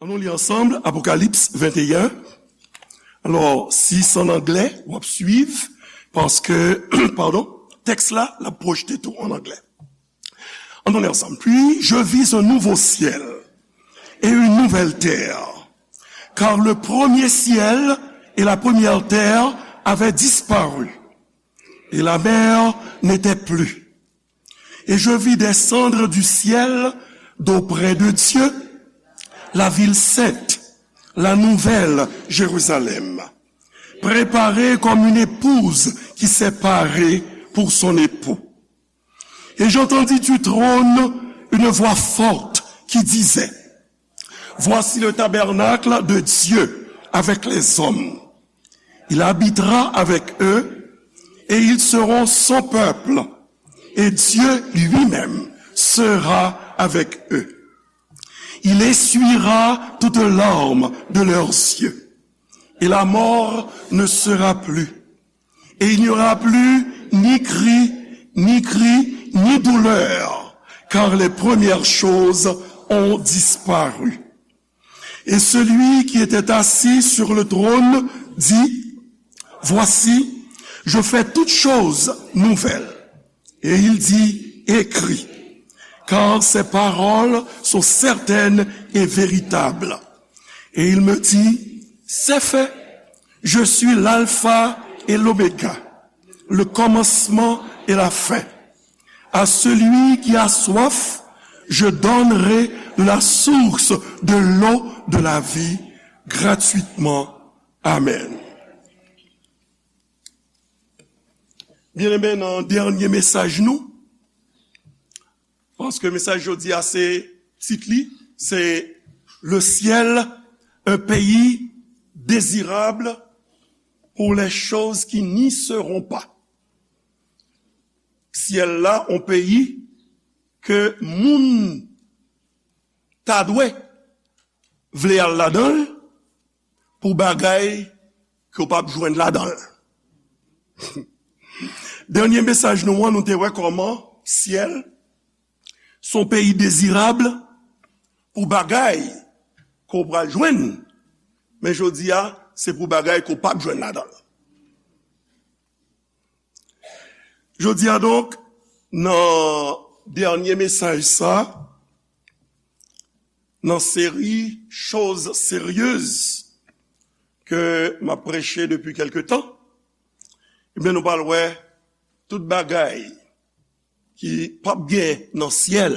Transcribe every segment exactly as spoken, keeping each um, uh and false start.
Ann nou li ansanm Apokalips venteyen. Alò, si se an anglè, w ap swiv, paske, padon, tèks la, l ap pwojte tou an anglè. Ann nou li ansanm. Puis je vis un nouveau ciel et une nouvelle terre, car le premier ciel et la première terre avaient disparu, et la mer n'était plus. Et je vis descendre du ciel d'auprès de Dieu la ville sainte, la nouvelle Jérusalem, préparée comme une épouse qui s'est parée pour son époux. Et j'entendis du trône une voix forte qui disait, Voici le tabernacle de Dieu avec les hommes. Il habitera avec eux et ils seront son peuple. Et Dieu lui-même sera avec eux. Il essuiera toute larme de leurs yeux. Et la mort ne sera plus. Et il n'y aura plus ni cri, ni cri, ni douleur, car les premières choses ont disparu. Et celui qui était assis sur le trône dit, Voici, je fais toutes choses nouvelles. Et il dit, Écris, car ces paroles sont certaines et véritables. Et il me dit, C'est fait, je suis l'alpha et l'oméga, le commencement et la fin. À celui qui a soif, je donnerai de la source de l'eau de la vie gratuitement. Amen. Byeneme, nan dènye mesaj nou, paske mesaj jodi a se tit li, se Le ciel, un pays désirable pour les choses qui n'y seront pas. Syèl la, yon peyi ke moun ta dwe vle al ladan l pou bagay ke w p ap jwenn ladan l. Dènye mesaj nou an, nou te wè kòman syèl se yon peyi dezirab pou bagay ke w pral jwenn, men jodi a, se pou bagay ke w p ap jwenn ladan l. Jodi a donk, nan dènye mesaj sa, nan seri Choses sérieuses ke m ap preche depi kèlke tan, ebyen, nou pral wè tout bagay ki p ap gen nan syèl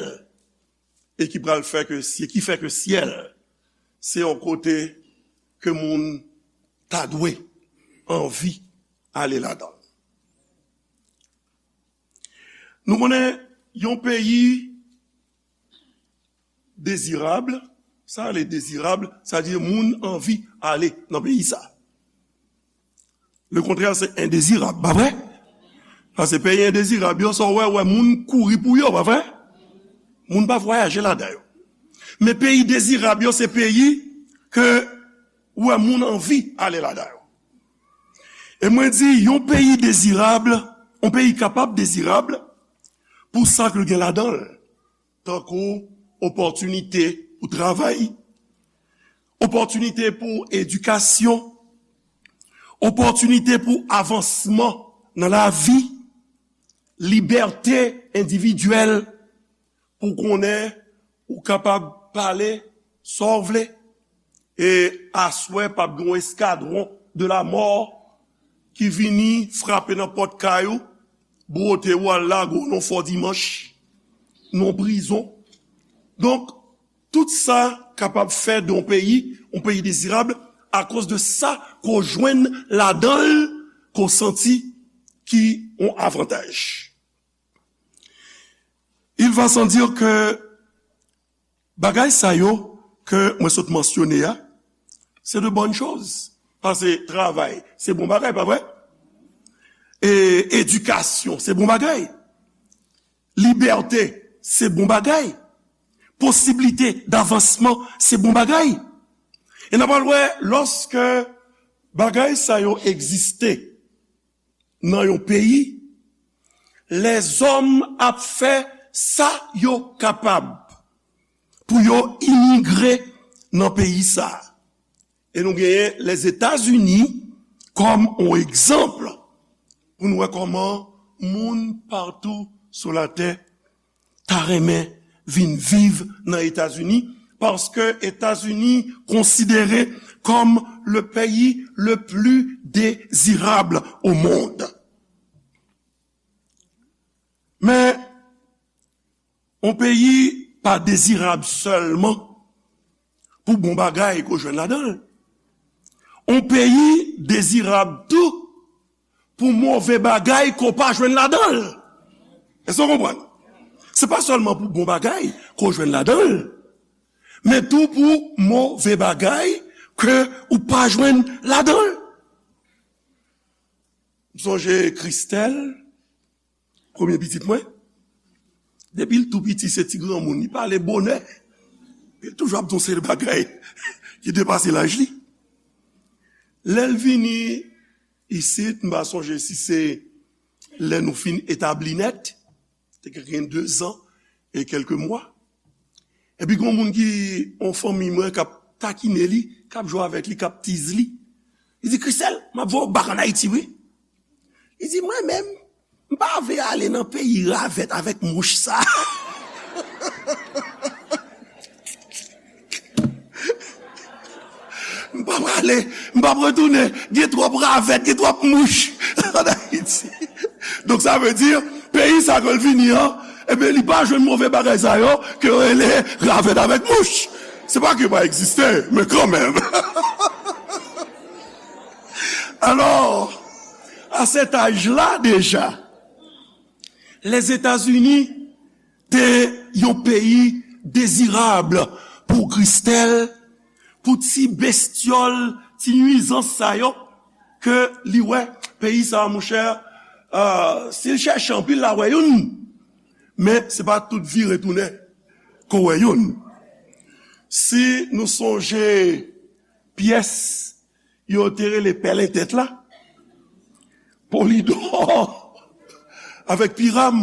e ki pral fè ke, ki fè ke syèl se yon kote ke moun ta dwe anvi ale ladan l. Nou konnen yon peyi dezirab, sa rele dezirab, sa di moun anvi ale nan peyi sa. Le kontrè se endezirab, pa vre? Paske peyi endezirab yo, sa w wè, wè moun kouri pou yo, pa vre? Moun pa vwayaje ladan yo. Men peyi dezirab yo, se peyi ke ou wè moun anvi ale ladan yo. E mwen di, yon peyi dezirab, yon peyi kapab dezirab pou sa ke l gen ladan l, tankou opòtinite pou travay, opòtinite pou edikasyon, opòtinite pou avansman nan lavi, libète endividyèl, pou konnen ou kapab pale sa w vle, e aswè p ap gen yon eskadwon de la mò ki vini frape nan pòt kay ou, bwote w al lage w nan fò dimanch, nan prizon. Donk, tout sa kapab fè de yon peyi, yon peyi dezirab, akoz de sa ke w jwenn ladan l, ke w santi ki yon avantaj. Il va sans dire que bagay sa yo ke mwen sot mansyone a, se de bonnes choses. Paske travay, se bon bagay, pa vre? E edikasyon, se bon bagay. Libète, se bon bagay. Posiblite davansman, se bon bagay. E n ap al wè, lòske bagay sa yo egziste nan yon peyi, lèzòm ap fè sa yo kapab pou yo imigre nan peyi sa a. E nou genyen Lèzetazini kòm yon egzanp pou nou wè kòman moun patou sou latè ta renmen vin viv nan Etazini, paske Etazini konsidere comme le pays le plus désirable au monde. Men, yon peyi pa dezirab sèlman pou bon bagay ke w jwenn ladan l. Yon peyi dezirab tou pou move bagay ke w pa jwenn ladan l. Èske w konprann? Se pa sèlman pou bon bagay ke w jwenn ladan l, men tou pou move bagay ke ou pa jwenn ladan l. M sonje Christelle, premye pitit mwen. Depi l tou piti, se ti granmoun. Li pale bonè. Li toujou ap di yon seri de bagay ki depase laj li. Lè l vini isit, m pa sonje si se lè nou fin etabli nèt, te gen de zan e kèlke mwa. Epi gen yon moun ki, yon fanmi mwen k ap takine li, k ap jwe avèk li, k ap tiz li. Li di, "Christelle, m ap voye w bak ann Ayiti, wi." Li di, "Mwen menm, m pa vle ale nan peyi ravèt avèk mouch sa." M p ap prale, m p ap retounen. Gen twòp ravèt, gen twòp mouch ann Ayiti. Donk, sa vle di, peyi sa ke l vini an, ebyen, li pa jwenn move bagay sa yo ke yo rele ravèt avèk mouch. Se pa ke yo pa egziste, men kanmenm. Alò, a sèt aj la deja, Lèzetazini te yon peyi dezirab pou Christelle, pou ti bestyòl, ti nwizans sa yo ke li wè. Peyi sa a, monchè, euh, si l chèche anpil, l a wè youn. Men se pa tout vire tounen ke w wè youn. Si nou sonje pyès yo te rele pèlen tèt la, Polidò avèk Piram,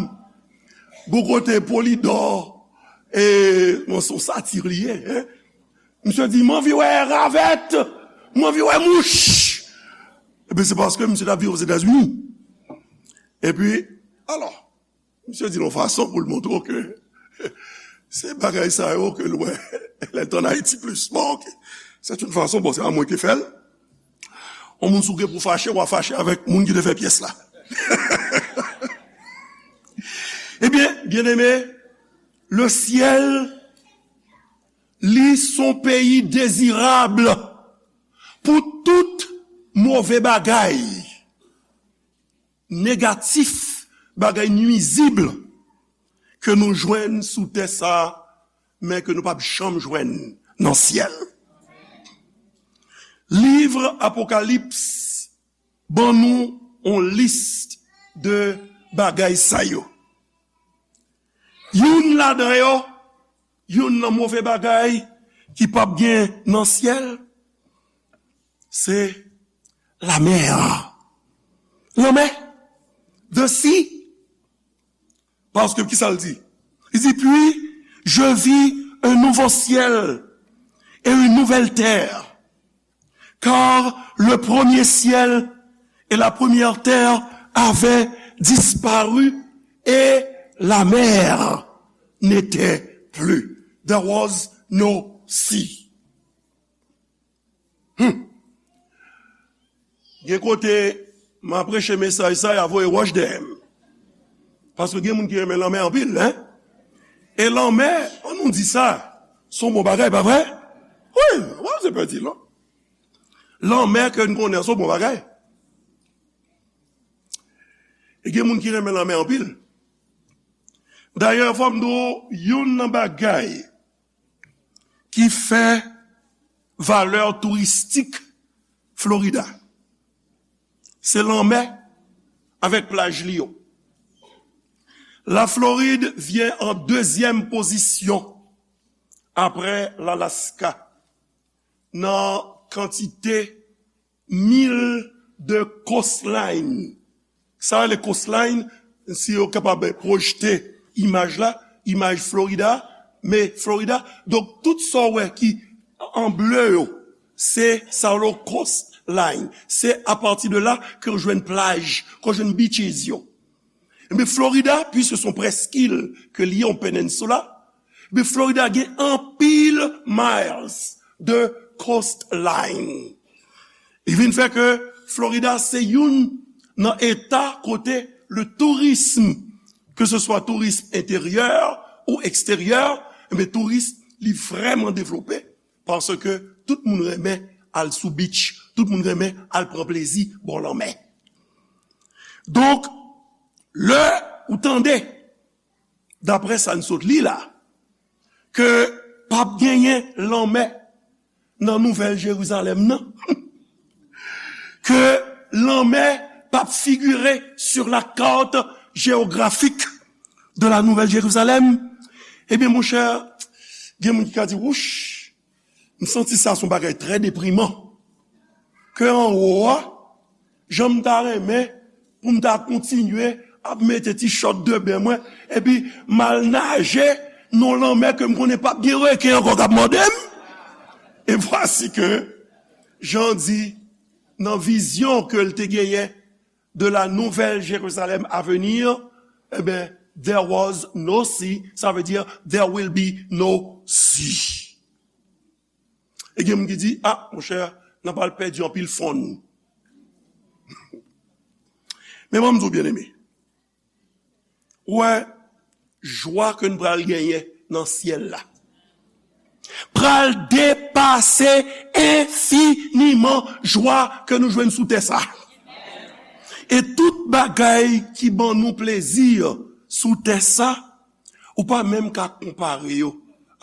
bò kote Polidò, e, bon, se yon sati li ye, en. Misye di, "M anvi wè ravèt, m anvi wè mouch." Ebyen, se paske misye t ap viv Ozetazini. Epi, alò, misye di l yon fason pou l montre w ke se bagay sa yo ke l wè, lè l t ann Ayiti plis. Bon, ok. C'est une façon, bon, se pa mwen ki fè l. Yon moun si w gen pou fache, w a fache avèk moun ki te fè pyès la. Ebyen, byeneme, le syèl, li se yon peyi dezirab pou tout move bagay, negatif, bagay nwizib ke nou jwenn sou tè sa a, men ke nou p ap janm jwenn nan syèl. Liv Apokalips ban nou yon lis de bagay sa yo. Youn ladan yo, youn nan move bagay ki p ap gen nan syèl, se lamè. Lanmè. The sea. Paske ki sa l di? Li di, "Puis je vis un nouveau ciel et une nouvelle terre, car le premier ciel et la première terre avaient disparu et la mer n'était plus." There was no sea. Hmm. Gen kote, m a preche mesaj sa, y a voye wòch dèyè m. Paske gen moun ki renmen lanmè anpil, en. E lanmè, an nou di sa, se yon bon bagay, pa vre? Wi, w ap se pèdi, non? Lanmè ke n konnen an, se yon bon bagay. E gen moun ki renmen lanmè anpil. Dayè, fò m di w, youn nan bagay ki fè valè touristik Florida, se lanmè avèk plaj li yo. La Floride vient en deuxième position après l'Alaska nan kantite mil de coastline. Sa rele coastline, si yo kapab pwojte imaj la, imaj Florida, men Florida. Donk, tout sa w wè ki an ble yo, se sa yo rele coastline. Se apati de la ke w jwenn plaj, ke w jwenn beaches yo. Ebyen, Florida, puiske se yon preskil ke li ye, yon peninsula, ebyen, Florida gen anpil miles de coastline. Li vin fè ke Florida se youn nan eta kote le tourism, ke se swa tourism enteryè ou eksteryè, ebyen, tourism li vrèman devlope, paske tout moun renmen al sou beach, tout moun renmen al pran plezi bò lanmè. Donk, lè ou tande, daprè sa n sot li la, ke p ap genyen lanmè nan Nouvèl Jerizalèm nan, ke lanmè p ap figire sur la carte géographique de la Nouvelle Jérusalem, ebyen, monchè, gen moun ki ka di, wouch, m santi sa se yon bagay trè depriman. Ke anwo a, jan m ta renmen pou m ta kontinye ap mete ti chòt de ben mwen, epi m al naje nan lanmè ke m konnen p ap gen reken ankò k ap mòde m. Et voici que, jan di, nan vizyon ke l te genyen de la Nouvelle Jérusalem à venir, eh ben, there was no sea, sa vle di, there will be no sea. E gen moun ki di, ah, monchè, n ap al pèdi anpil fon. Men ban m di w, byeneme, ou wè, jwa ke n pral genyen nan syèl la pral depase enfiniman jwa ke nou jwenn sou tè sa. E tout bagay ki ban nou plezi sou tè sa, ou pa menm ka konpare yo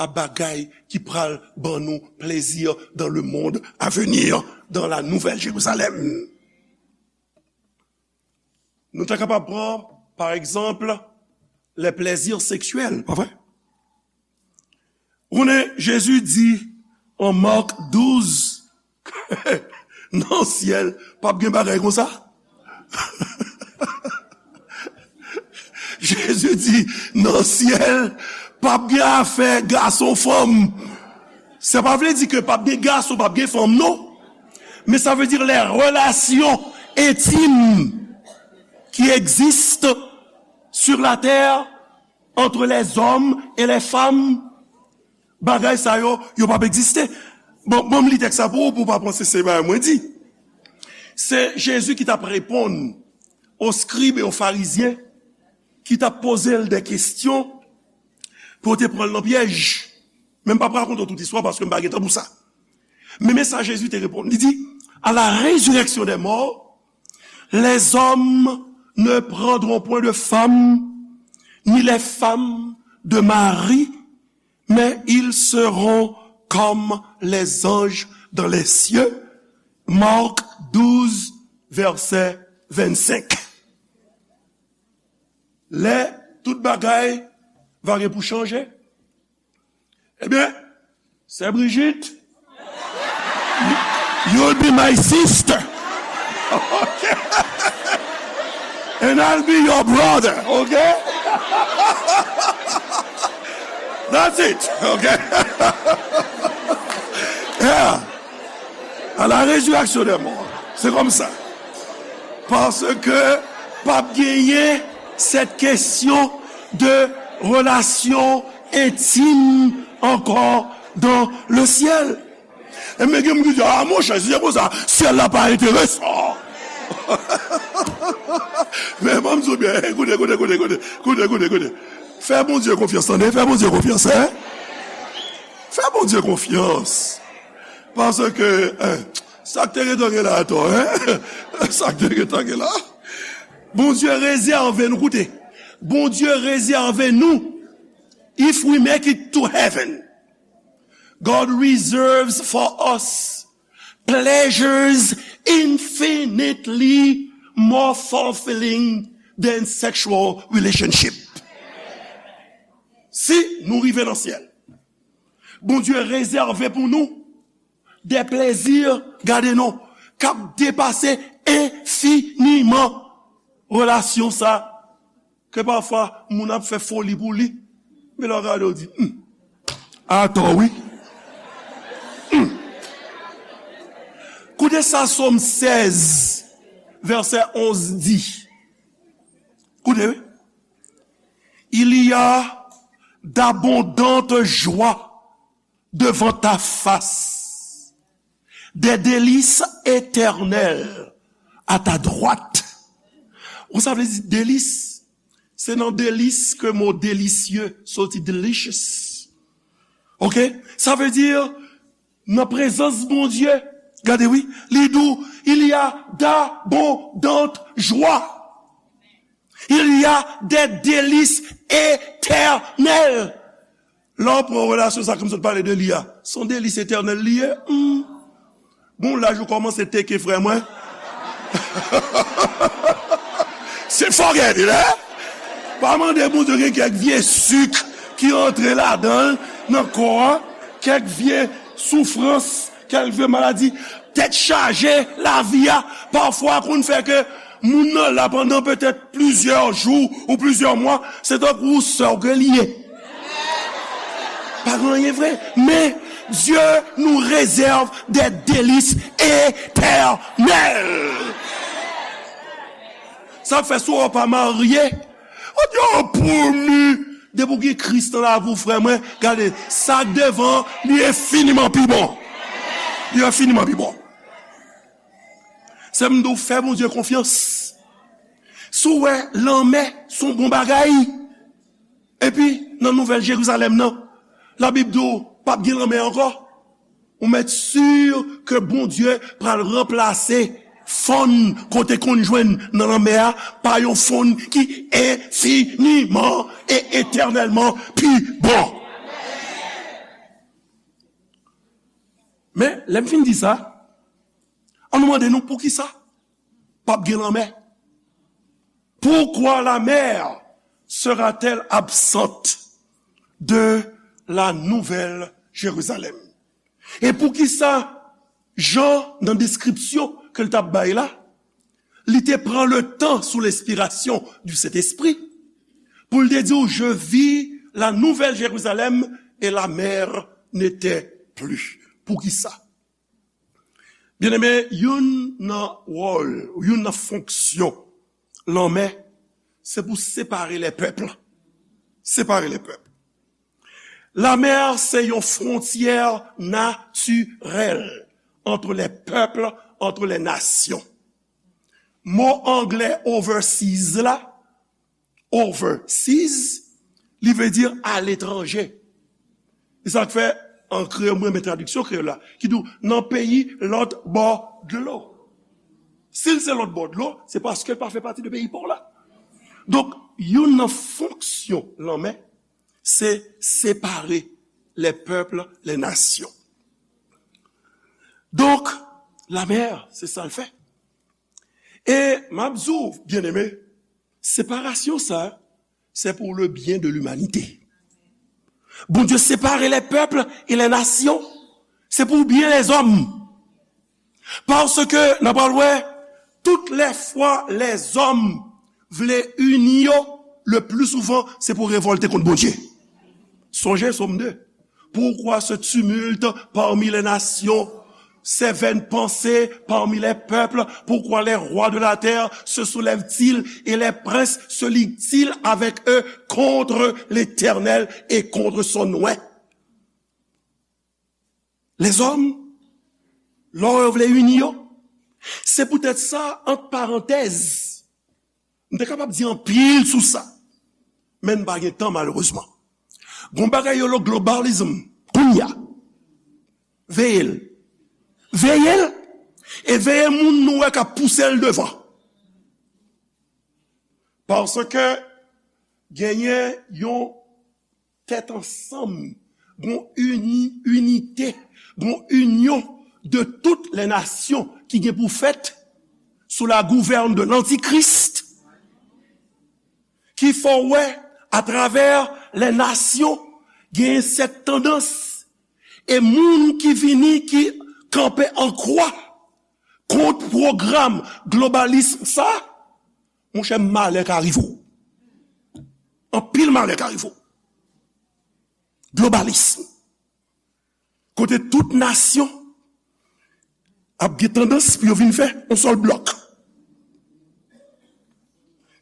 a bagay ki pral ban nou plezi dans le monde à venir, dans la Nouvelle Jérusalem. Nou ta kapab pran, pa egzanp, les plaisirs sexuels, pa vre? Ou konnen, Jezi di an Mak douz, nan syèl, p ap gen bagay konsa. Jezi di, nan syèl, p ap gen afè gason, fanm. Sa pa vle di ke p ap gen gason, p ap gen fanm, non. Men sa vle di les relations intimes qui existent sur la terre entre les hommes et les femmes, bagay sa yo, yo p ap egziste. Bon, bon, m li tèks sa pou ou, pou w pa panse se bagay mwen di. Se Jezi ki t ap reponn aux scribes et aux pharisiens ki t ap poze l de kesyon pou yo te pran l nan pyèj. Men m p ap rakonte w tout istwa paske m pa gen tan pou sa. Men, men sa Jezi te reponn. Li di, à la résurrection des morts, les hommes ne prendront point de femme, ni les femmes de mari, mais ils seront comme les anges dans les cieux. Marc douze, verset vingt-cinq. Lè tout bagay va gen pou chanje, ebyen, sè Brigitte, you'll be my sister. Okay? And I'll be your brother, okay? That's it, okay? Yeah. À la résurrection des morts. C'est comme ça. Paske p ap genyen cette question de relation intime encore dans le ciel. E men gen moun ki di, ah, monchè, si se konsa, syèl la pa enteresan. Men ban m di w byen, koute, koute, koute, koute, koute, koute, koute. Fè Bondye konfyans, tande, fè Bondye konfyans, en. Fè Bondye konfyans. Paske, en, sa k te gentan gen la atò, en. Sa k te gentan gen la. Bondye rezève nou, koute. Bondye rezève nou, if we make it to heaven, God reserves for us pleasures infinitely more fulfilling than sexual relationship. Si nou rive nan syèl, Bondye rezève pou nou de plezi, gade non, k ap depase enfiniman relasyon sa ke pafwa moun ap fè foli pou li. Men lè w gade, w di, hmm, atò wi. Gade sa Sòm sèz, vèsè onz di. Koute, wi. Il y a d'abondantes joies devant ta face, des délices éternelles à ta droite. Ou sa vle di delis? Se nan delis ke mo délicieux soti, delicious. Ok? Sa vle di, nan prezans Bondye, gade wi, li di w, il y a d'abondantes joies. Il y a des délices éternelles. Lè w pran relasyon sa ke m sot pale de li a, se yon delis etènèl li ye. Hmm. Bon, laj ou kòmanse teke, frè mwen. Se forget it, hein? Pa mande Bondye gen kèk vye sik ki antre ladan l, nan kò a, kèk vye soufrans, kèk vye maladi, tèt chaje, lavi a, pafwa konn fè ke moun nan la pandan petèt plizyè jou ou plizyè mwa, se tankou sè w ke li ye. Pa gen anyen vre. Men, Dieu nous réserve des délices éternels. Sa fè si w pa marye, ou di, "Oh, pou mi." Depi w gen Kris nan lavi w, frè mwen, gade, sa k devan, li enfiniman pi bon. Li enfiniman pi bon. Se m di w, fè Bondye konfyans. Si w wè lanmè se yon bon bagay, epi nan Nouvèl Jerizalèm nan, Labib di w p ap gen lanmè ankò, ou mèt si ke Bondye pral ranplase fòn kote konn jwenn nan lanmè a pa yon fòn ki enfiniman e etènèlman pi bon. Men, lè m fin di sa, ann nou mande nou poukisa p ap gen lanmè. Pourquoi la mer sera-t-elle absente de la Nouvelle Jérusalem? E poukisa Jan, nan deskripsyon ke l t ap bay la, li te pran le tan sou lenspirasyon du Sentespri pou l te di w, "Je vis la Nouvelle Jérusalem et la mer n'était plus." Poukisa? Byeneme, youn nan wòl, youn nan fonksyon lanmè, se pou separe lè pèp. Separe lè pèp. Lanmè se yon fwontyè natirèl entre les peuples, entre les nations. Mo anglè overseas la, overseas, li vle di aletranje. E sa k fè, an kreyòl, mwen renmen tradiksyon kreyòl la, ki di w nan peyi lòt bò dlo. Si l se lòt bò dlo, se paske l pa fè pati de peyi pa w la. Donk, youn nan fonksyon lanmè, se separe les peuples, les nations. Donk, lanmè, se sa l fè. E m ap di w, byeneme, separasyon sa, c'est pour le bien de l'humanité. Bondye separe les peuples et les nations, se pou byen lèzòm. Paske, n ap pral wè, toutes les fois lèzòm vle ini yo, le plus souvent, se pou revòlte kont Bondye. Sonje Sòm de. Pourquoi ce tumulte parmi les nations, ces vaines pensées parmi les peuples? Pourquoi les rois de la terre se soulèvent-ils et les princes se liguent-ils avec eux contre l'Éternel et contre son oint? Lèzòm, lè yo vle ini yo, se poutèt sa, ant parantèz, m te kapab di anpil sou sa, men n pa gen tan, malerezman. Gon bagay yo rele globalism, kounye a. Veye l. Veye l, e veye moun nou wè k ap pouse l devan. Paske genyen yon tèt ansanm, gon ini, inite, gon inyon de toutes les nations ki gen pou fèt sous la gouverne de l'Antichrist, ki fè w wè atravè les nations, genyen sèt tandans, e moun ki vini, ki kanpe an kwa kont pwogram globalism sa, monchè, malè ka rive w. Anpil malè ka rive w. Globalism. Kote tout nasyon ap gen tandans pou yo vin fè yon sèl blòk.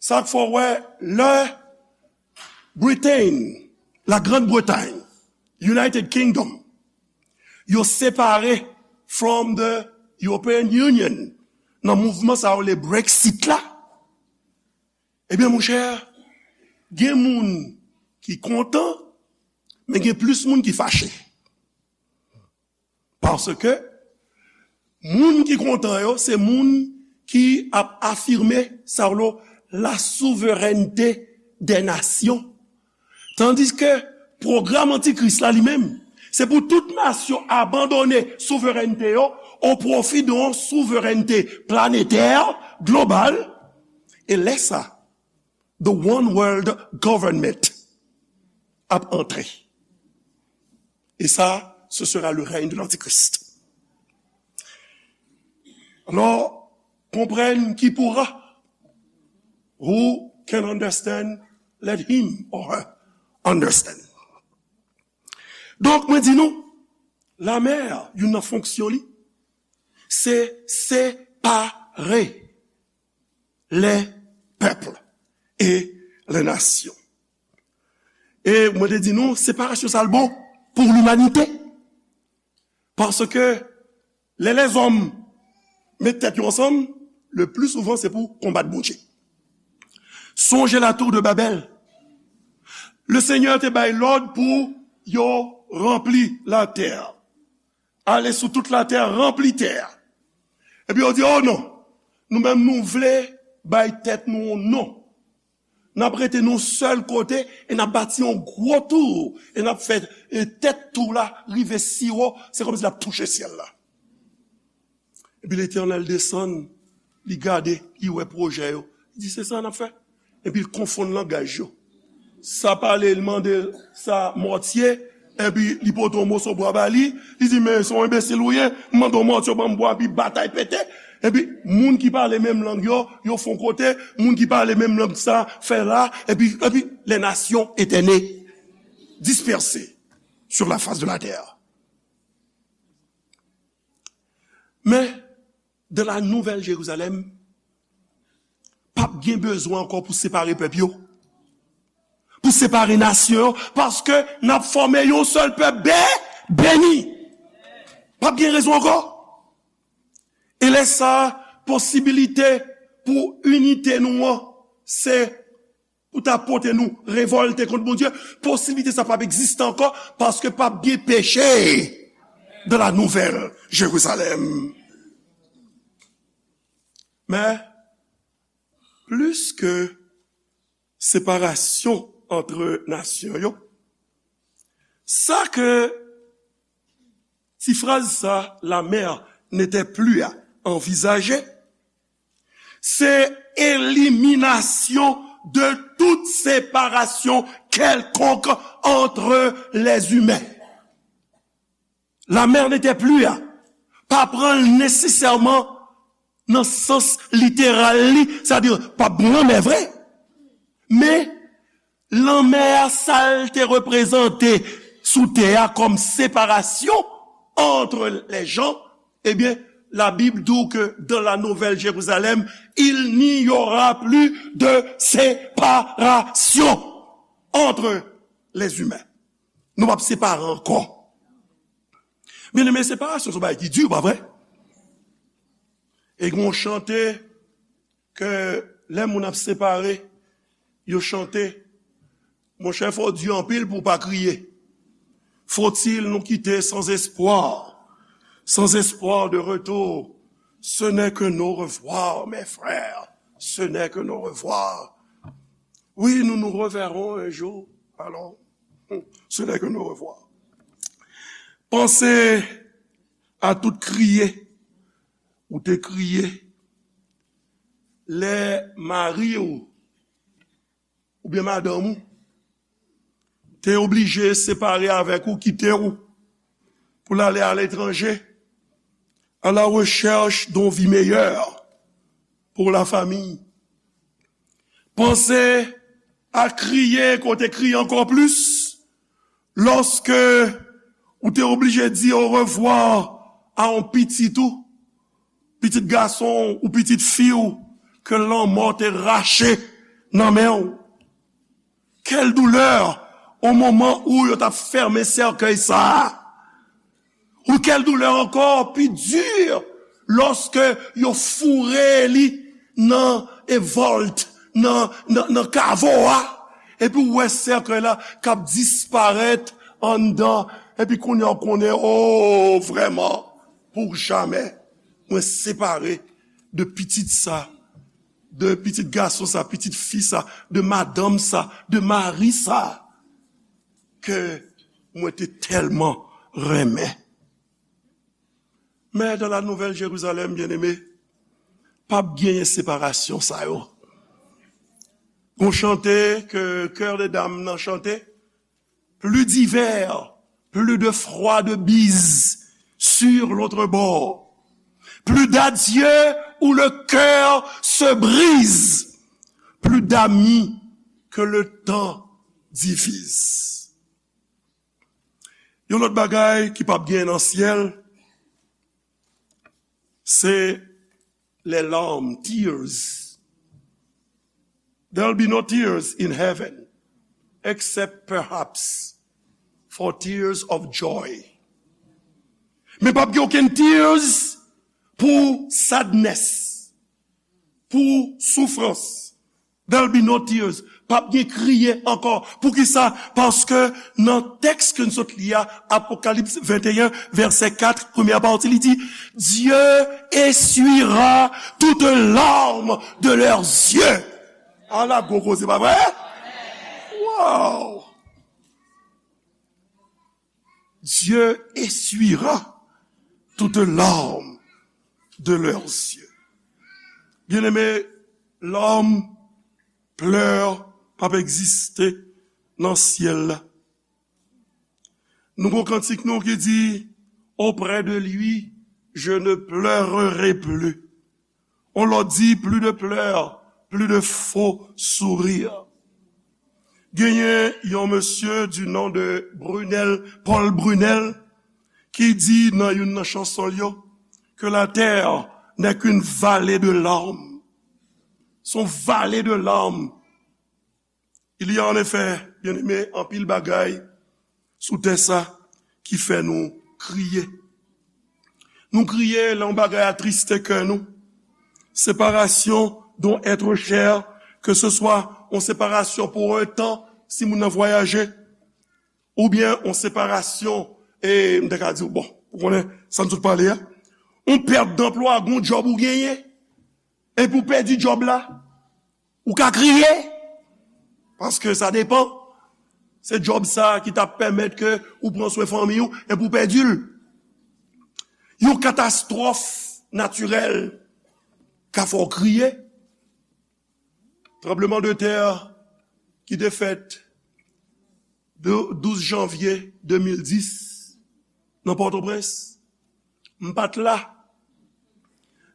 Sa k fè w wè lè Britain, la Grande Bretagne, United Kingdom, yo separe from the European Union nan mouvman sa yo le Brexit la, ebyen, monchè, gen moun ki kontan, men gen plis moun ki fache. Paske moun ki kontan yo, se moun ki ap afime sa yo, la souveraineté des nations. Tandiske pwogram antikris la li menm, se pou tout nasyon abandone souveraineté yo o pwofi de yon souveraineté planetè, global, e lè sa, the one world government ap antre. E sa, ce sera le règne de l'antichrist. Alò, comprenne qui pourra. Who can understand, let him or her understand. Donk, mwen di nou, lamè, youn nan fonksyon li, se separe les peuples et les nations. E mwen te di nou, separasyon sa l bon pou limanite. Paske lè lèzòm met tèt yo ansanm, le pli souvan se pou konbat Bondye. Sonje la tour de Babel. Le Senyè te bay lòd pou yo ranpli latè. Allez sur toute la terre, remplis terre. Epi yo di, oh non, nou menm nou vle bay tèt nou yon non. N ap rete nou sèl kote e n ap bati yon gwo tou e n ap fè e tèt tou la rive si wo, se kòmsi l ap touche syèl la. Epi Letènèl desann, li gade, li wè pwojè yo. Li di, se sa n ap fè. Epi l konfonn langaj yo. Sa pale, li mande sa mòtye, epi li pote yon moso bwa ba li, li di, men se yon enbesil ou ye, m mande yon mòtye, ban m bwa, epi batay pete. Epi moun ki pale menm lang yo, yo fè yon kote, moun ki pale menm lang sa, fè la, epi, epi les nations étaient nées, dispersées sur la face de la terre. Men, dans la Nouvelle Jérusalem, p ap gen bezwen ankò pou separe pèp yo, pou separe nasyon yo, paske n ap fòme yon sèl pèp be-, beni. P ap gen rezon ankò. E lè sa, posibilite pou inite nou an, se pou ta pote nou revòlte kont Bondye, posiblite sa p ap egziste ankò, paske p ap gen peche dans la Nouvelle Jérusalem. Men, plis ke separasyon ant nasyon yo, sa ke ti fraz sa, la mer n'était plus à envisager, se eliminasyon de tout separasyon kèlkonk ant lèzimen. La mer n'était plus à, pa pran l nesesèman nan sans literal li, sètadi p ap gen lanmè vre. Men, lanmè a, sa l te reprezante sou tè a kòm separasyon entre les gens, ebyen, la Bible dit que dans la Nouvelle Jérusalem, il n'y aura plus de séparation entre les humains. Nou p ap separe ankò. Byeneme, separasyon se yon bagay ki di, pa vre? E gen yon chante ke lè moun ap separe, yo chante, monchè, fò w di anpil pou w pa kriye. Faut-il nous quitter sans espoir, sans espoir de retour? Ce n'est qu'un au revoir, mes frères, ce n'est qu'un au revoir. Oui, nous nous reverrons un jour, alors, ce n'est qu'un au revoir. Panse a tout kriye ou te kriye lè mari w oubyen madanm ou te oblije separe avèk ou, kite w pou l ale aletranje, à la recherche d'une vie meilleure pour la famille. Panse a kriye, ke w te kriye ankò plis, lòske ou te oblije di orevwa a yon pitit ou, pitit gason w ou pitit fi w ke lanmò te rache nan men w. Quelle douleur au moment où yo t ap fèmen sèkèy sa a. Ou quelle douleur encore, pi di, lòske yo foure li nan e vòlt, nan, nan, nan kavo a. Epi ou wè sèkèy la k ap disparèt anndan. Epi kounye a ou konnen, o, vrèman, pou jamè, mwen separe de pitit sa, de pitit gason sa, pitit fi sa, de madanm sa, de mari sa, ke mwen te tèlman renmen. Men dans la Nouvelle Jérusalem, byeneme, p ap genyen separasyon sa yo. Gon chante ke Chœur des Dames nan chante, plus d'hiver, plus de froide bise sur l'autre bord. Plus d'adieu où le cœur se brise, plus d'amis que le temps divise. Yon lòt bagay ki p ap gen nan syèl, se les larmes, tears. There'll be no tears in heaven, except perhaps for tears of joy. Men p ap gen okenn tears pou sadness, pou soufrans. There'll be no tears. P ap gen kriye ankò. Poukisa? Paske nan tèks ke n sot li a, Apokalips venteyen, vèsè kat, premyè pati, li di, Dieu essuiera toute larme de leurs yeux. Ala gwo koze, pa vre? Wow! Dieu essuiera toute larme de leurs yeux. Byeneme, larmes, pleurs p ap egziste nan syèl la. Nou gon kantik nou ki di, Auprès de lui, je ne pleurerai plus. On lòt di, plus de pleurs, plus de faux sourires. Genyen yon mesye du nom de Brunel, Paul Brunel, ki di nan youn nan chanson l yo, que la terre n'est qu'une vallée de larmes. C'est une vallée de larmes. Il y a en effet, byeneme, anpil bagay sou tè sa ki fè nou kriye. Nou kriye lè yon bagay atriste kè nou. Séparation d'un être cher, que ce soit yon separasyon pou yon tan, si moun nan vwayaje, oubyen yon separasyon, e m te ka di w, bon, ou konnen sa n sot pale a, yon pèt danplwa, gon djòb ou genyen, epi w pèdi djòb la, ou ka kriye, paske sa depan. Se djòb sa ki t ap pèmèt ke ou pran swen fanmi w, epi w pèdi l. Yon katastwòf natirèl ka fè w kriye. Tranbleman de tè ki te fèt de douz janvye de mil dis nan Pòtoprens, m pa t la.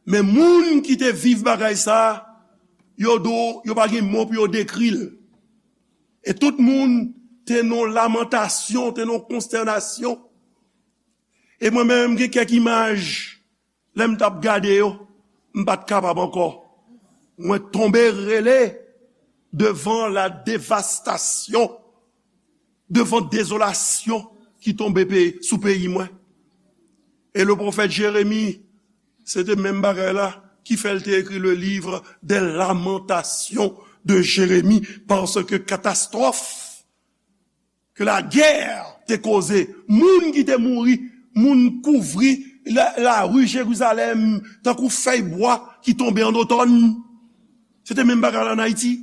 Men moun ki te viv bagay sa, yo di w, yo pa gen mo pou yo dekri l. E tout moun te nan lamantasyon, te nan konstènasyon. E mwen menm, gen kèk imaj, lè m t ap gade yo, m pa t kapab ankò. Mwen tonbe rele devan la devastasyon, devan dezolasyon ki tonbe pe-, sou peyi mwen. E le pwofèt Jeremi, se te menm bagay la ki fè l te ekri le livre des lamentations de Jérémie, paske katastwòf ke lagè te koze, moun ki te mouri, moun kouvri la, lari Jerizalèm tankou fèy bwa ki tonbe an otòn. Se te menm bagay la ann Ayiti.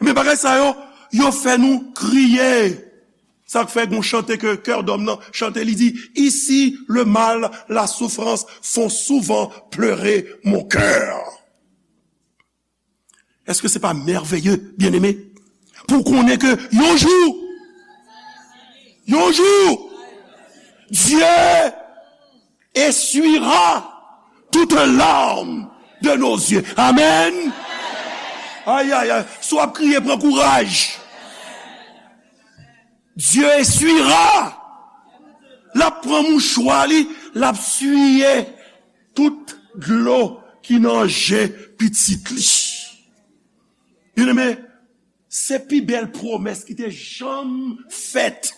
Men bagay sa yo, yo fè nou kriye. Sa k fè gon chante ke Kè Dòm nan chante, li di, Ici, le mal, la souffrance font souvent pleurer mon cœur. Èske se pa mèveye, byeneme? Pou w konnen ke yon jou, yon jou, Dieu essuiera toute larme de nos yeux. Amen. Ay, ay, ay. Si w ap kriye, pran kouraj. Dieu essuiera. L ap pran mouchwa li, l ap siye tout dlo ki nan je pitit li. Byeneme, se pi bèl pwomès ki te janm fèt.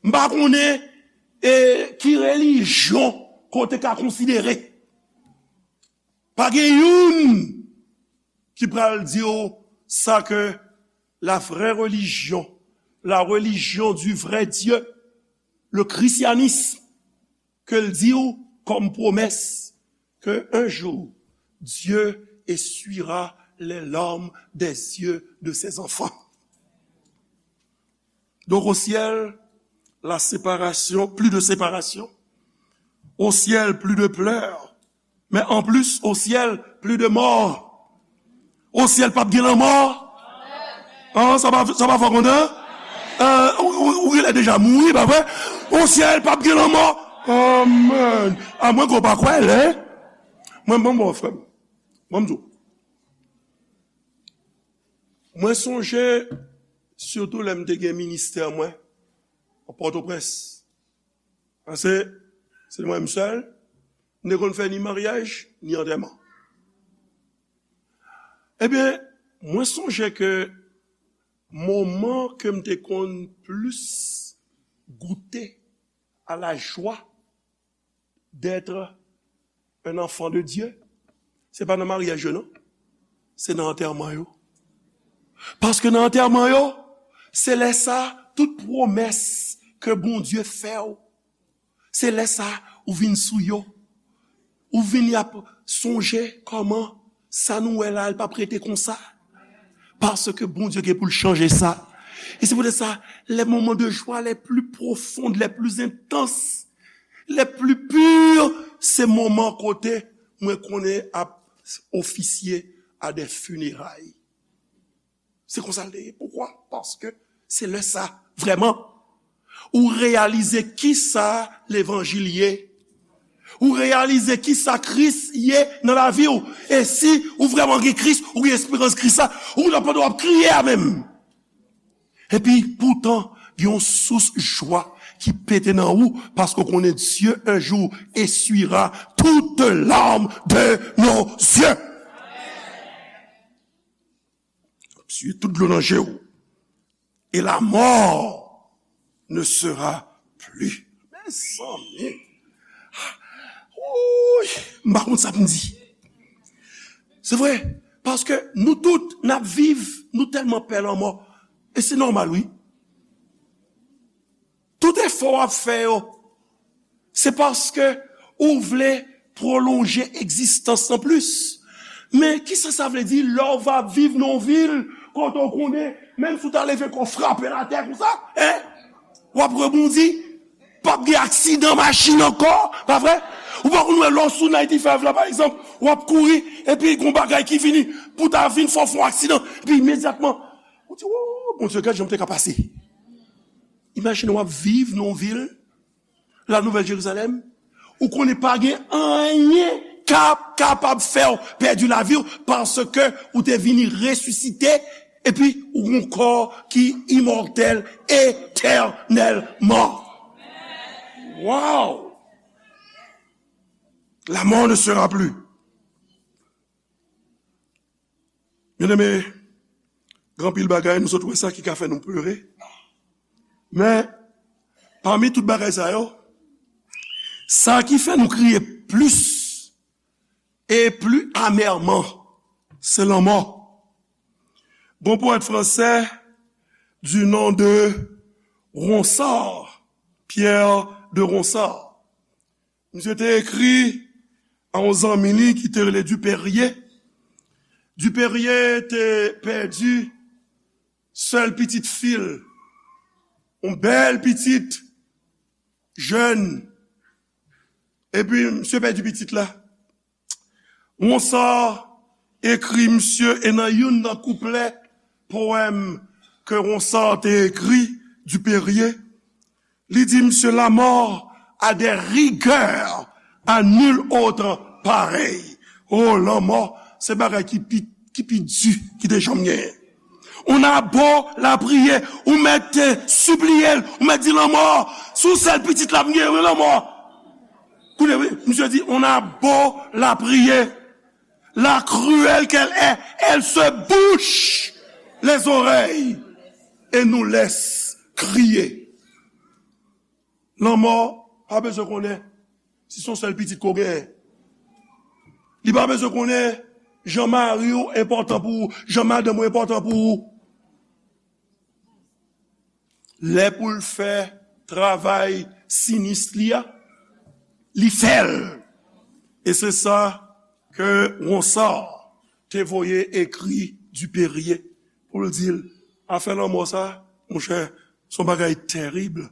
M pa konnen e ki relijyon ke w te ka konsidere. Pa gen youn ki pral di w sa ke la vraie religion, la religion du vrai Dieu, le christianisme, ke l di w kòm pwomès ke un jour, Dieu essuiera les larmes des yeux de ses enfants. Donc au ciel, la séparation, plus de séparation. Au ciel, plus de pleurs. Mais en plus, au ciel, plus de morts. Au ciel, p ap gen lanmò. Ah, sa pa, sa pa fè w kontan? Euh, ou, ou, ou genlè deja mouri, pa vre? Au ciel, p ap gen lanmò. Amen. A mwen ke w pa kwè, lè. Mwen, mwen, bon, frè m. Mwen, m di w. Mwen sonje, sitou lè m te gen ministè mwen, an Pòtoprens. Paske, se mwen m sèl, m te konn fè ni maryaj, ni antèman. Ebyen, mwen sonje ke moman ke m te konn plis goute à la joie d'être un enfant de Dieu, se pa nan maryaj yo, non. Se nan antèman yo. Paske nan antèman yo, se lè sa, tout pwomès ke Bondye fè w, se lè sa, ou vin sou yo. Ou vin y ap sonje kòman sa nou wè la, l p ap rete konsa. Paske Bondye gen pou l chanje sa. E se poutèt sa, les moments de joie les plus profondes, les plus intenses, les plus purs, se moman kote mwen konnen ap ofisye a de fineray. Se konsa l te ye. Poukwa? Paske se lè sa, vrèman, ou reyalize kisa levanjil ye. Ou reyalize kisa Kris ye nan lavi w. E si ou vrèman gen Kris, ou gen esperans Kris la, ou nan pandan w ap kriye a menm. Epi poutan, gen yon sous jwa ki pete nan ou, paske w konnen Dieu un jour essuiera toute larme de nos yeux. Essuie tout dlo nan je w. Et la mort ne sera plus. Mezanmi. Wouy, m pa konn sa pou m di. Se vre, paske nou tout, n ap viv, nou tèlman pè lanmò. E se nòmal, wi. Tout efò w ap fè yo, se paske ou vle pwolonje egzistans lan plis. Men kisa sa vle di lè w va viv nan yon vil kote w konnen, menm si w ta leve kò w frape l atè konsa, en, w ap rebondi, p ap gen aksidan machin ankò, pa vre? Ou pa konn wè lè w sou ninety-five la, pa egzanp, w ap kouri, epi gon bagay ki vini, pou ta vin fè w fè yon aksidan, epi imedyatman, ou di, "Wo, Bondye, gad jan m te ka pase." Imajine w ap viv nan yon vil, La Nouvelle Jérusalem, ou konnen pa gen anyen k ap kapab fè w pèdi lavi w, paske ou te vini resisite, epi ou gon kò ki imòtèl etènèlman. Wow! La mort ne sera plus. Byeneme, gen anpil bagay nou sot wè sa ki ka fè nou plere. Men, pami tout bagay sa yo, sa ki fè nou kriye plis e pli amèman, se lanmò. Gon powèt fransè du nom de Ronsard, Pierre de Ronsard. Misye te ekri a yon zanmi li ki te rele Dupérier. Dupérier te pèdi sèl pitit fi l, yon bèl pitit, jèn. Epi misye pèdi pitit la. Ronsard ekri misye, e nan youn nan kouplè powèm ke Ronsard te ekri, Dupérier, li di misye, "La mort a des rigueurs à nul autre pareil." Oh, lanmò, se bagay ki pi, ki pi di ki te janm genyen. On a beau lapriyè, ou mèt, eh, sipliye l, ou mèt di, "Lanmò, se ou sèl pitit la m genyen, wi, lanmò." Kounye a, wi, Misye di, on a beau la prier, la cruelle qu'elle est, elle se bouche les oreilles et nous laisse crier. Lanmò pa bezwen konnen si se yon sèl pitit ke w genyen. Li pa bezwen konnen jan mari w enpòtan pou ou, jan madanm ou enpòtan pou ou. Lè pou l fè travay sinis li a, li fè l. E se sa ke Ronsard te voye ekri Dupérier pou l di l, afè lanmò sa, monchè, se yon bagay tèrib.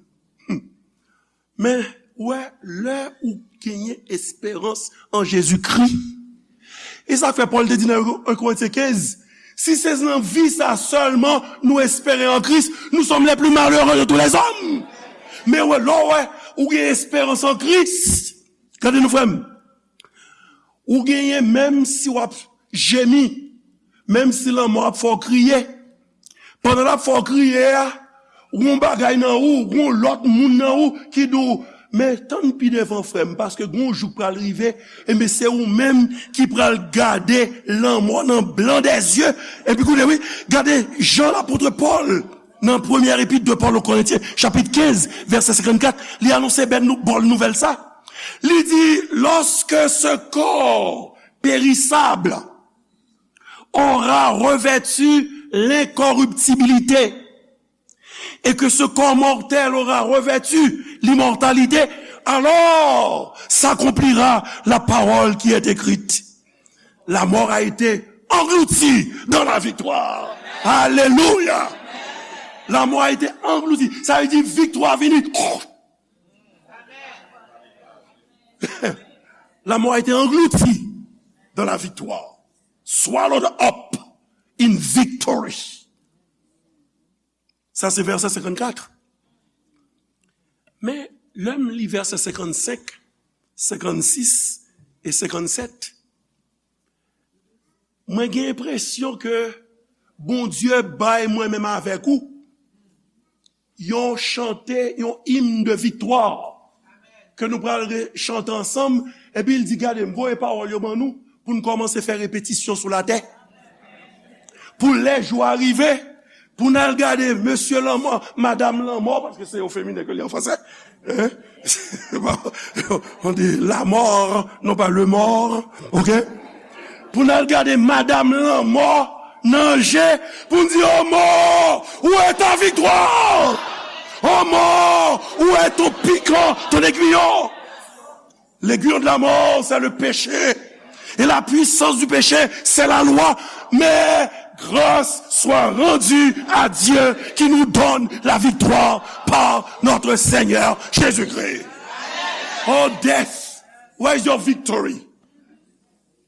Hmm. Men, ou wè, lè ou genyen esperans an Jezikri, e sa k fè Pòl te di nan en Korentyen kenz, si se nan vi sa sèlman nou espere an Kris, nous sommes les plus malheureux de tous les hommes. Men wè, lè w wè, ou gen esperans an Kris, gade non frè m, ou genyen menm si w ap jemi, menm si lanmò ap fè w kriye, pandan l ap fè w kriye a, gon bagay nan ou, gon lòt moun nan ou ki di w, men tann pi devan frè m, paske gon jou k pral rive, enben se ou menm ki pral gade lanmò nan blan dè zye, epi koute wi, gade jan lapot Pòl, nan premyè epit de Paul aux Corinthiens, chapit kenz, vèsè senkannkat, li anonse bèl nou, bòn nouvèl sa. Li di, lorsque ce corps périssable aura revêtu l'incorruptibilité, et que ce corps mortel aura revêtu l'immortalité, alors s'accomplira la parole qui est écrite. La mort a été engloutie dans la victoire. Alléluia. La mort a été engloutie. Sa vle di viktwa vini. La mort a été engloutie dans la victoire. Swallowed up in victory. Sa se vèsè senkannkat. Men, lè m li vèsè senkannsenk, senkannsis e senkannsèt, mwen gen enpresyon ke Bondye bay mwen menm avèk ou yon chante, yon im de viktwa ke nou pral re-, chante ansanm. Epi l di, gade, m voye pawòl yo ban nou pou n kòmanse fè repetisyon sou latè. Pou lè jou a rive, pou n al gade mesye lanmò, madam lanmò, paske se o feminen ke li an fransè. Hein? On dit la mort, non pas le mort, ok? Pou n al gade madam lanmò nan je, pou n di, o mò, où est ta victoire? O mò, où est ton piquant, ton aiguillon? L'aiguillon de la mort, c'est le péché. Et la puissance du péché, c'est la loi. Mais grâce soit rendue à Dieu qui nous donne la victoire par notre Seigneur Jésus-Christ. Oh death, where is your victory?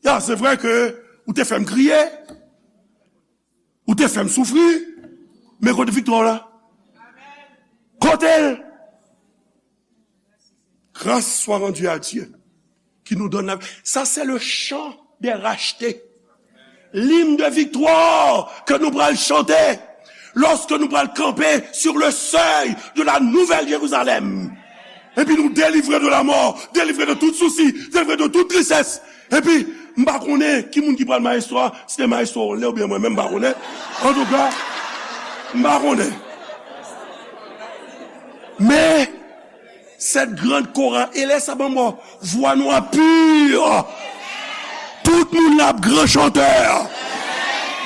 Ya, se vre ke ou te fè m kriye, ou te fè m soufri, men kote viktwa w la? Kote l? Grâce soit rendue à Dieu qui nous donne la... Ça, c'est le chant des rachetés. L'hymne de victoire que nous pral chanter lorsque nous pral camper sur le seuil de la Nouvelle Jérusalem. Epi nou delivre de la mort, delivre de tout souci, delivre de toute tristesse. Epi, m pa konnen ki moun ki pral maestro a, si se maestro Onle oubyen mwen menm, m pa konnen. Antouka, m pa konnen. Men, cette grande chorale, e lè sa ban mwen vwa nou a pur. Tout moun la ap gran chantè.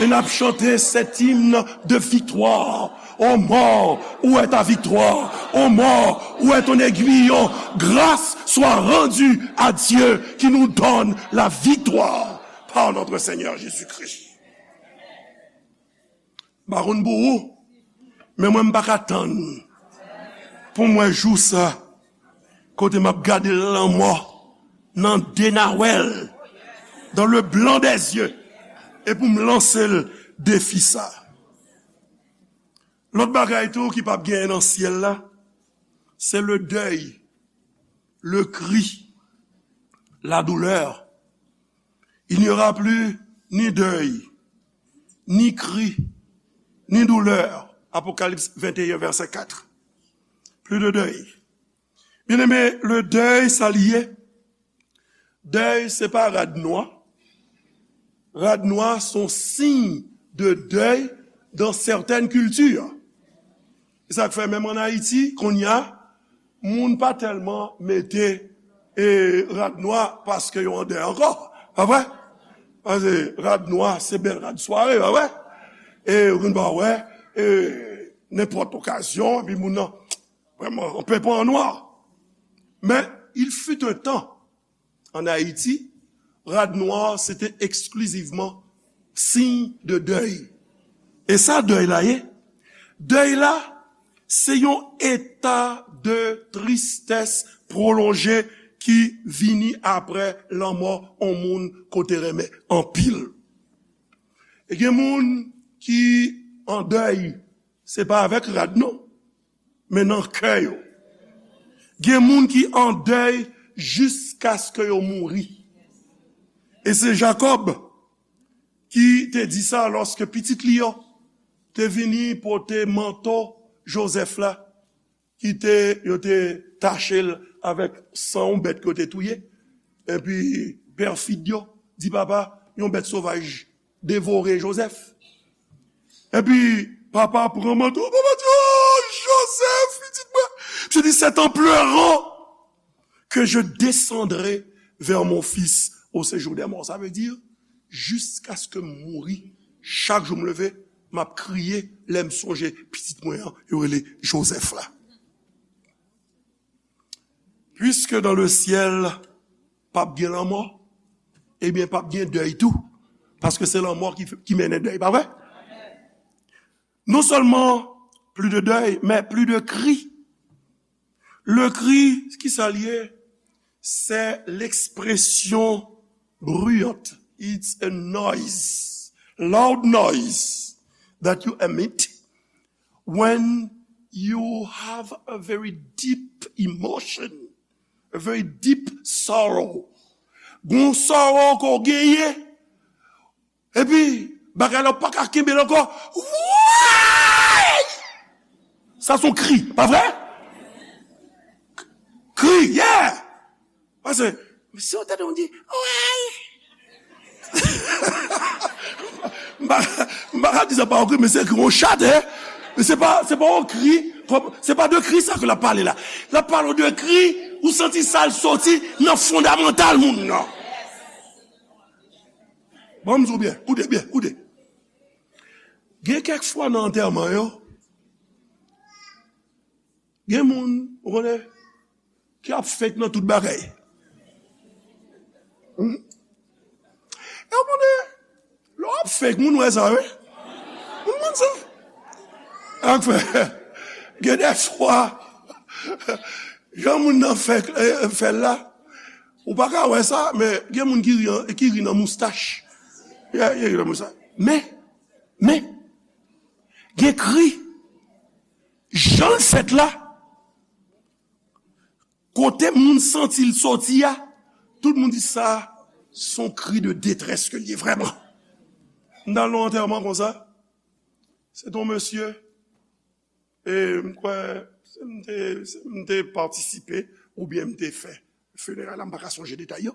E n ap chante cet hymne de victoire. Ô mort, où est ta victoire? Ô mort, où est ton aiguillon? Grâce soit rendue à Dieu qui nous donne la victoire par notre Seigneur Jésus-Christ. M pa konn pou ou, men mwen m pa ka tann pou m wè jou sa, kote m ap gade lanmò nan de nawèl, dans le blanc des yeux, e pou m lanse l defi sa. Lòt bagay tou ki p ap genyen nan syèl la, se le deuil, le cri, la douleur. Il n'y aura plus ni deuil, ni cri, ni douleur. Apocalypse vingt et un, verset quatre. Plus de deuil. Bien-aimé, le deuil, sa li ye. Dèy, se pa rad nwa. Rad nwa se yon siy de dèy dans certaines cultures. Se sa k fè menm ann Ayiti, kounye a, moun pa tèlman mete, e, rad nwa paske yo an dèy ankò. Pa vre? Paske rad nwa, se bèl rad sware, pa vre? E, ou konn pa wè, e, nenpòt okazyon, epi moun nan, vrèman, on peut pas en noir. Men, il fut un temps, ann Ayiti, rad nwa se te eksklizivman siy de dèy. E sa dèy la ye? Dèy la, se yon eta de tristès pwolonje ki vini apre lanmò yon moun ke w te renmen anpil. E gen moun ki an dèy, se pa avèk rad non, men nan kè yo. Gen moun ki an dèy jiskaske yo mouri. E se Jakòb ki te di sa lòske pitit li yo te vini pote manto Jozèf la, ki te, yo te tache l avèk san yon bèt ke yo te touye. Epi pèfid yo di papa, yon bèt sovaj devore Jozèf. Epi papa pran manto, papa di, "Oh, Joseph, pitit mwen." Misye di, "C'est en pleurant que je descendrai vers mon fils au séjour des morts." Sa vle di, jiskaske m mouri, chak jou m leve, m ap kriye lè m sonje pitit mwen an, yo rele Joseph la. Puisque dans le ciel, p ap gen lanmò, ebyen, p ap gen dèy tou. Paske se lanmò ki, ki mennen dèy, pa vre? Non seulement plus de deuil, mais plus de cris. Le cri, ki sa l ye? C'est l'expression bruyante. It's a noise, loud noise that you emit when you have a very deep emotion, a very deep sorrow. Gon sorrow ke w genyen, epi bagay la w pa ka kenbe l ankò. Woy! Sa se yon kri, pa vre? Kri, yeah! Paske, si w tande yon di, woy! M pa, m pa ka di sa pa yon kri, men se kri yon chat, hein? Men se pa, se pa yon kri, kòm, se pa de kri sa ke l ap pale la. L ap pale de kri, ou santi sa l soti nan fondamantal moun nan. Bon, m di w byen, koute byen, koute. Gen kèk fwa nan antèman yo, gen moun, ou konnen, ki ap fake nan tout bagay. Hmm? E ou konnen, lè w ap fake, moun wè sa, wi. Moun konn sa. Sa k fè, gen de fwa, jan moun nan fè, eh, fè l la, ou pa ka wè sa, men gen moun ki ri an, ki ri nan moustach. Ki, ki ri nan moustach. Men, men, gen kri, jan l fèt la, kote moun santi l soti a, tout moun di sa, se yon kri de detrès ke l ye vrèman. M t al nan yon antèman konsa, se t on mesye, e m kwè, se m te, se m te patisipe, oubyen m te fè fineray la, m pa ka sonje detay yo.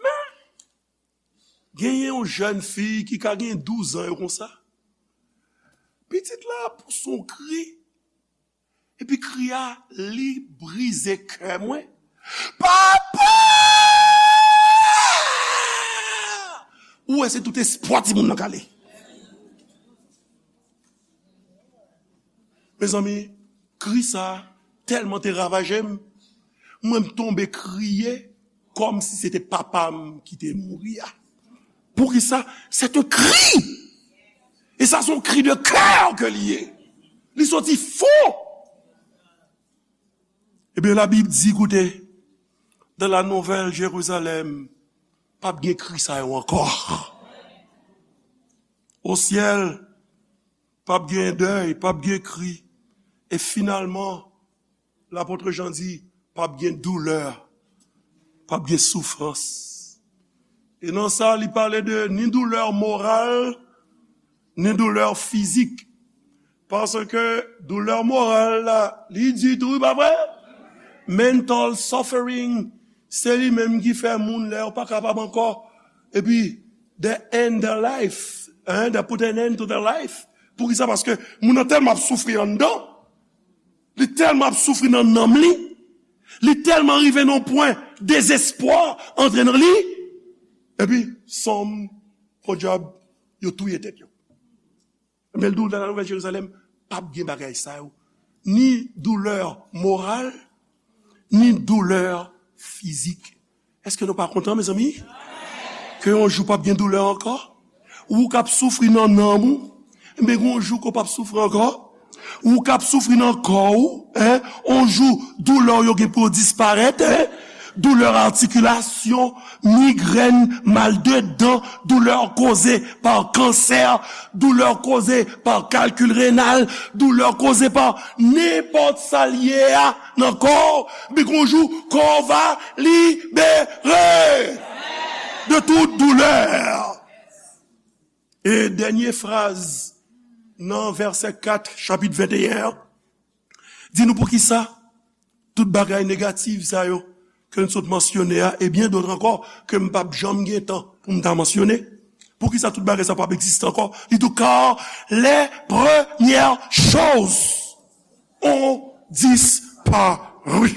Men, genyen yon jèn fi ki ka gen douz an yo konsa. Pitit la pouse yon kri, epi kri a, li brize kè mwen. Papa! Ou wè se tout espwa timoun nan k ale. Mezanmi, kri sa tèlman te ravaje m, mwen m tonbe kriye kòmsi se te papa m ki te mouri a. Poukisa? C'est un cri! E sa se yon kri de kè ke li ye. Li soti fon. Ebyen, Labib di, koute, dans la Nouvelle Jérusalem, p ap gen kri sa yo ankò. O syèl, p ap gen dèy, p ap gen kri. E finalman, lapòt Jan di, p ap gen doulè, p ap gen soufrans. E nan sa, li pale de ni doulè moral, ni doulè fizik. Paske doulè moral la, li di tou, pa vre? Mental suffering, Se li menm ki fè moun lè yo pa kapab ankò. Epi, they end their life. Hein? They put an end to their life. Poukisa? Paske moun nan tèlman ap soufri anndan. Li tèlman ap soufri nan nanm li. Li tèlman rive nan pwen dezespwa antre nan li. Epi, sonm, podyab, yo touye tèt yo. Men l di w nan Nouvèl Jerizalèm, p ap gen bagay sa yo. Ni doulè moral, ni doulè fizik. Èske nou pa kontan, mezanmi? Ke yon jou p ap gen doulè ankò? Ou k ap soufri nan nanm ou, men gen yon jou ke w p ap soufri ankò. Ou k ap soufri nan kò w, en, yon jou doulè w yo gen pou yo disparèt, en. Doulè atikilasyon, migrèn, mal de dan, doulè koze pa kansè, doulè koze pa kalkil renal, doulè koze pa nenpòt sa l ye a nan kò w, men gen yon jou kò w va libere de tout doulè. E dènye fraz nan vèsè kat chapit venteyen an, di nou poukisa tout bagay negatif sa yo ke n sot mansyone a, e byen dòt ankò ke m p ap janm gen tan pou m ta mansyone. Poukisa tout bagay sa p ap egziste ankò? Li di w, car les premières choses ont disparu.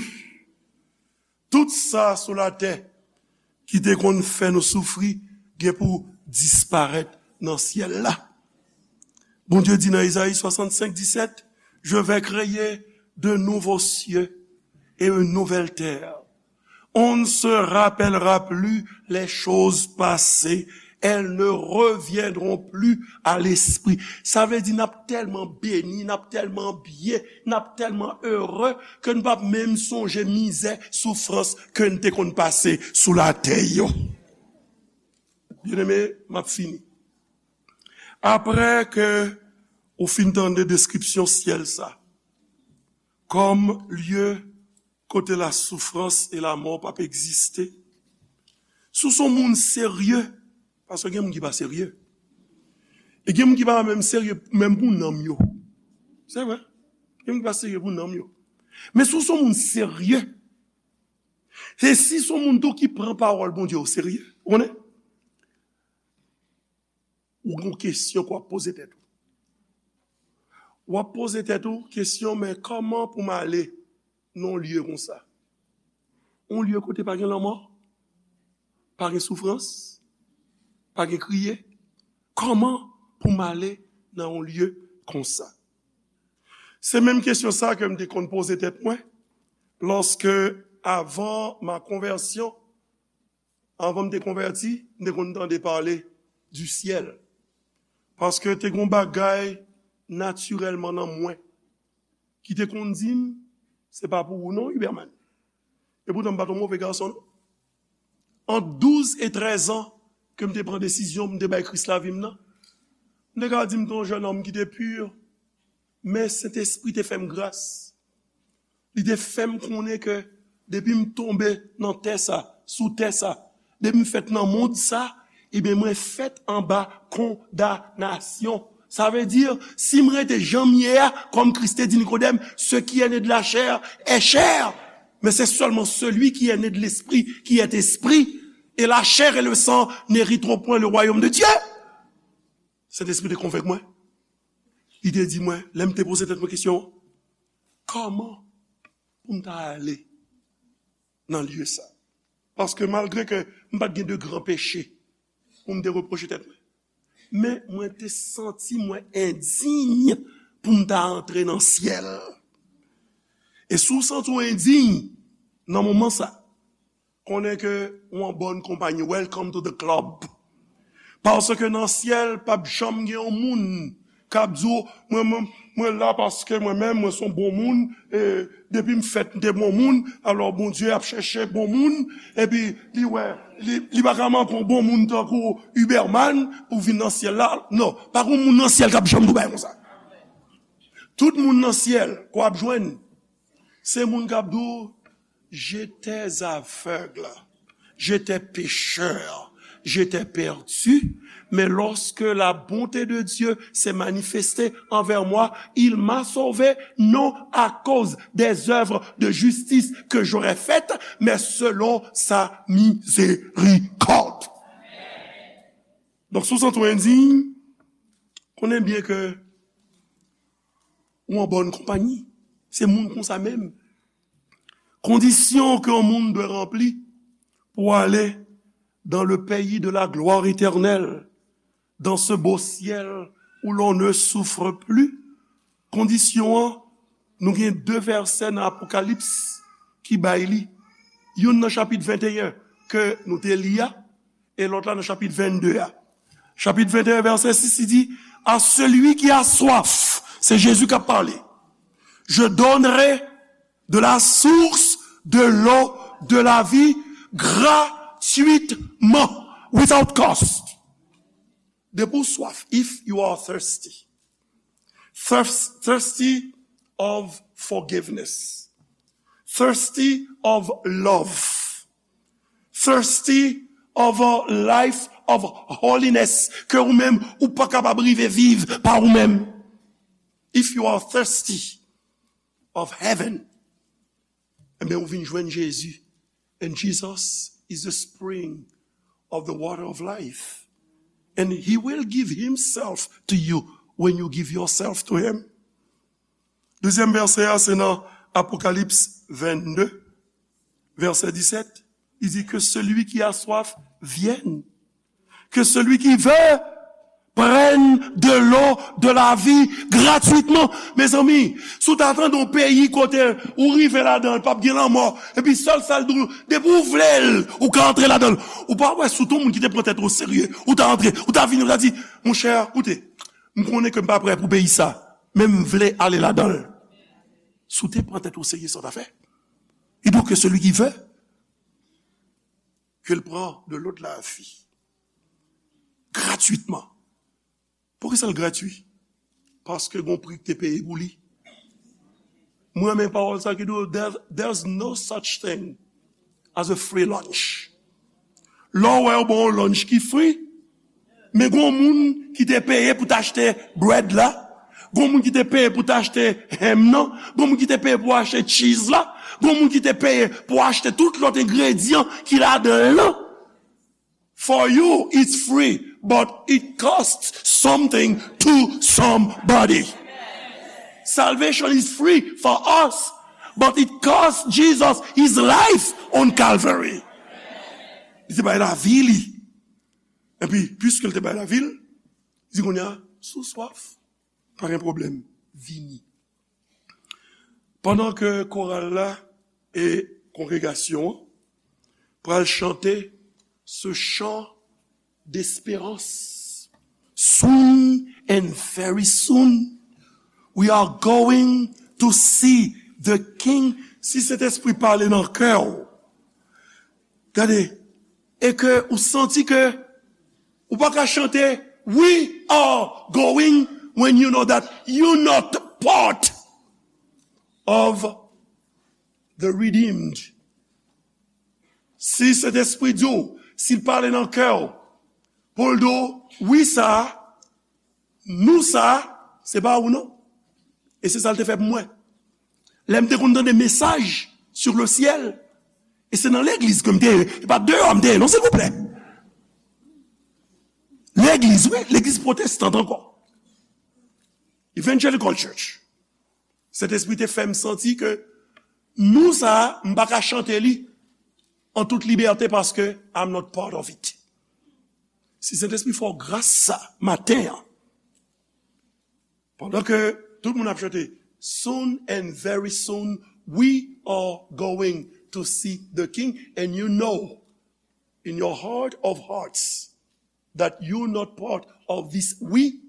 Tout sa sou latè ki te konn fè nou soufri gen pou disparèt nan syèl la. Bondye di nan Ezayi swasannsenk disèt, je vais créer de nouveaux cieux et une nouvelle terre. On ne se rappellera plus les choses passées, elles ne reviendront plus à l'esprit. Sa vle di n ap tèlman beni, n ap tèlman byen, n ap tèlman ere ke n p ap menm sonje mizè, soufrans ke n te konn pase sou latè yo. Byeneme, m ap fini. Apre ke ou fin tande deskripsyon syèl sa, kòm lye kote lasoufrans e lamò p ap egziste. Si w se yon moun serye, paske gen moun ki pa serye. E gen moun ki pa menm serye menm pou nanm yo. Se vre. Gen moun ki pa serye pou nanm yo. Men si w se yon moun serye, e si se yon moun tou ki pran pawòl Bondye o serye, ou konnen? Ou gen kesyon ke w ap poze tèt ou. W ap poze tèt ou kesyon, men kòman pou m ale nan yon lye konsa? Yon lye kote pa gen lanmò, pa gen soufrans, pa gen kriye. Kòman pou m ale nan yon lye konsa? Se menm kesyon sa ke m te konn poze tèt mwen, lòske, avan ma konvèsyon, anvan m te konvèti, m te konn tande pale du ciel. Paske te gen yon bagay natirèlman nan mwen ki te konn di m, se pa pou ou non, Huberman. E poutan m pa t yon move gason non. Ant douz e trèz an ke m te pran desizyon pou m te bay Kris lavi m nan, m te ka di m te yon jènòm ki te pi, men Sentespri te fè m gras. Li te fè m konnen ke depi m tonbe nan tè sa, sou tè sa, depi m fèt nan mond sa, ebyen mwen fèt anba kondanasyon. Sa vle di, si m rete jan m ye a, kòm Kris te di Nikodèm, ce qui est né de la chair est chair, mais c'est seulement celui qui est né de l'esprit qui est esprit, et la chair et le sang n'hériteront point le royaume de Dieu. Sentespri te konvenk mwen. Li te di mwen, lè m te poze tèt mwen kesyon, kòman pou m ta ale nan lye sa? Paske malgre ke m pa t gen de gran peche pou m te repwoche tèt mwen, men mwen te santi mwen endiy pou m ta antre nan syèl. E si w santi w endiy nan moman sa, konnen ke ou an bòn konpayi. Welcome to the club. Paske nan syèl, p ap janm gen yon moun k ap di w, mwen, mwen, mwen la paske mwen menm, mwen se yon bon moun, e depi m fèt, m te bon moun, alò Bondye ap chèche bon moun, epi li wè, li, li pa ka manke yon bon moun tankou Huberman pou vin nan syèl la. Non, pa gen yon moun nan syèl k ap janm di w bagay konsa. Tout moun nan syèl, ke w ap jwenn, se moun k ap di w, j'étais aveugle, j'étais pécheur, J'étais perdu, mais lorsque la bonté de Dieu s'est manifestée envers moi, il m'a sauvé, non à cause des œuvres de justice que j'aurais faites, mais selon sa miséricorde. Donk, si w santi w endiy, konnen byen ke ou an bòn konpayi. Se moun konsa menm. Kondisyon ke yon moun dwe ranpli pou ale dans le pays de la gloire éternelle, dans ce beau ciel où l'on ne souffre plus. Kondisyon an, nou gen de vèsè nan Apokalips ki bay li. Youn nan chapit venteyen ke nou te li a, e lòt la nan chapit vennde a. Chapit venteyen, vèsè sis, li di, à celui qui a soif, c'est Jésus qui a parlé, je donnerai de la source de l'eau de la vie gratuitement, without cost. Depi w swaf, if you are thirsty, thirst, thirsty of forgiveness, thirsty of love, thirsty of a life of holiness, ke ou menm ou pa kapab rive viv pa ou menm. If you are thirsty of heaven, ebyen, ou vin jwenn Jezi. And Jesus is the spring of the water of life. And he will give himself to you when you give yourself to him. Dezyèm vèsè a, se nan Apokalips vennde, vèsè disèt. Il dit que celui qui a soif vienne. Que celui qui veut prenne de l'eau de la vie gratuitement. Mezanmi, si w ta tande yon peyi kote ou rive ladan l, p ap gen lanmò, epi sèl sa l di w, depi w vle l, ou ka antre ladan l. Ou pa wè si w te yon moun ki te pran tèt ou serye, ou ta antre, ou ta vini, ou ta di, monchè, koute, m konnen ke m pa prè pou peyi sa, men m vle ale ladan l. Si w te pran tèt ou serye, sa w ta fè? Il dit que celui qui veut, que l pran de l'eau de la vie. Gratuitman. Poukisa l gratwi? Paske gon pri ki te peye pou li. Mwen renmen pawòl sa ki di, there, there's no such thing as a free lunch. Lè w wè yo ba w yon lunch ki free, men gon moun ki te peye pou t achte bread la, gon moun ki te peye pou t achte ham nan, gon moun ki te peye pou achte cheese la, gon moun ki te peye pou achte tout lòt engredyan ki ladan l lan. For you, it's free, but it costs something to somebody. Salvation is free for us, but it cost Jesus his life on Calvary. Li te bay lavi li. Epi, piske l te bay lavi l, li di kounye a, si w swaf, pa gen pwoblèm, vini. Pandan ke koral la e kongregasyon an pral chante ce chant d'espérance. Soon and very soon, we are going to see the King. Si Sentespri pale nan kè w, gade, e ke ou santi ke ou pa ka chante, "We are going," when you know that you not part of the redeemed. Si Sentespri di w, si l pale nan kè w, pou l di w, "Wi sa, nou sa, se pa ou non." E se sa l te fè pou mwen. Lè m te konn tande mesaj sur le ciel, e se nan legliz ke m te ye, e pa deyò m te ye non, silvouplè. Legliz, wi, legliz pwotestan ankò. Evangelical Church. Sentespri te fè m santi ke nou sa, m pa ka chante li an tout libète paske I'm not part of it. Si Sentespri fè w gras sa maten an, pandan ke tout moun ap chante, "Soon and very soon, we are going to see the King," and you know, in your heart of hearts, that you not part of this we,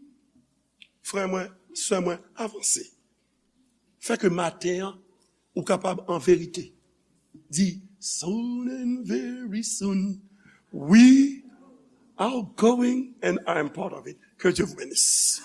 frè mwen, sè mwen, avanse. Fè ke maten an, ou kapab an verite di, "Soon and very soon, we are going and I am part of it." Que Dieu vous bénisse.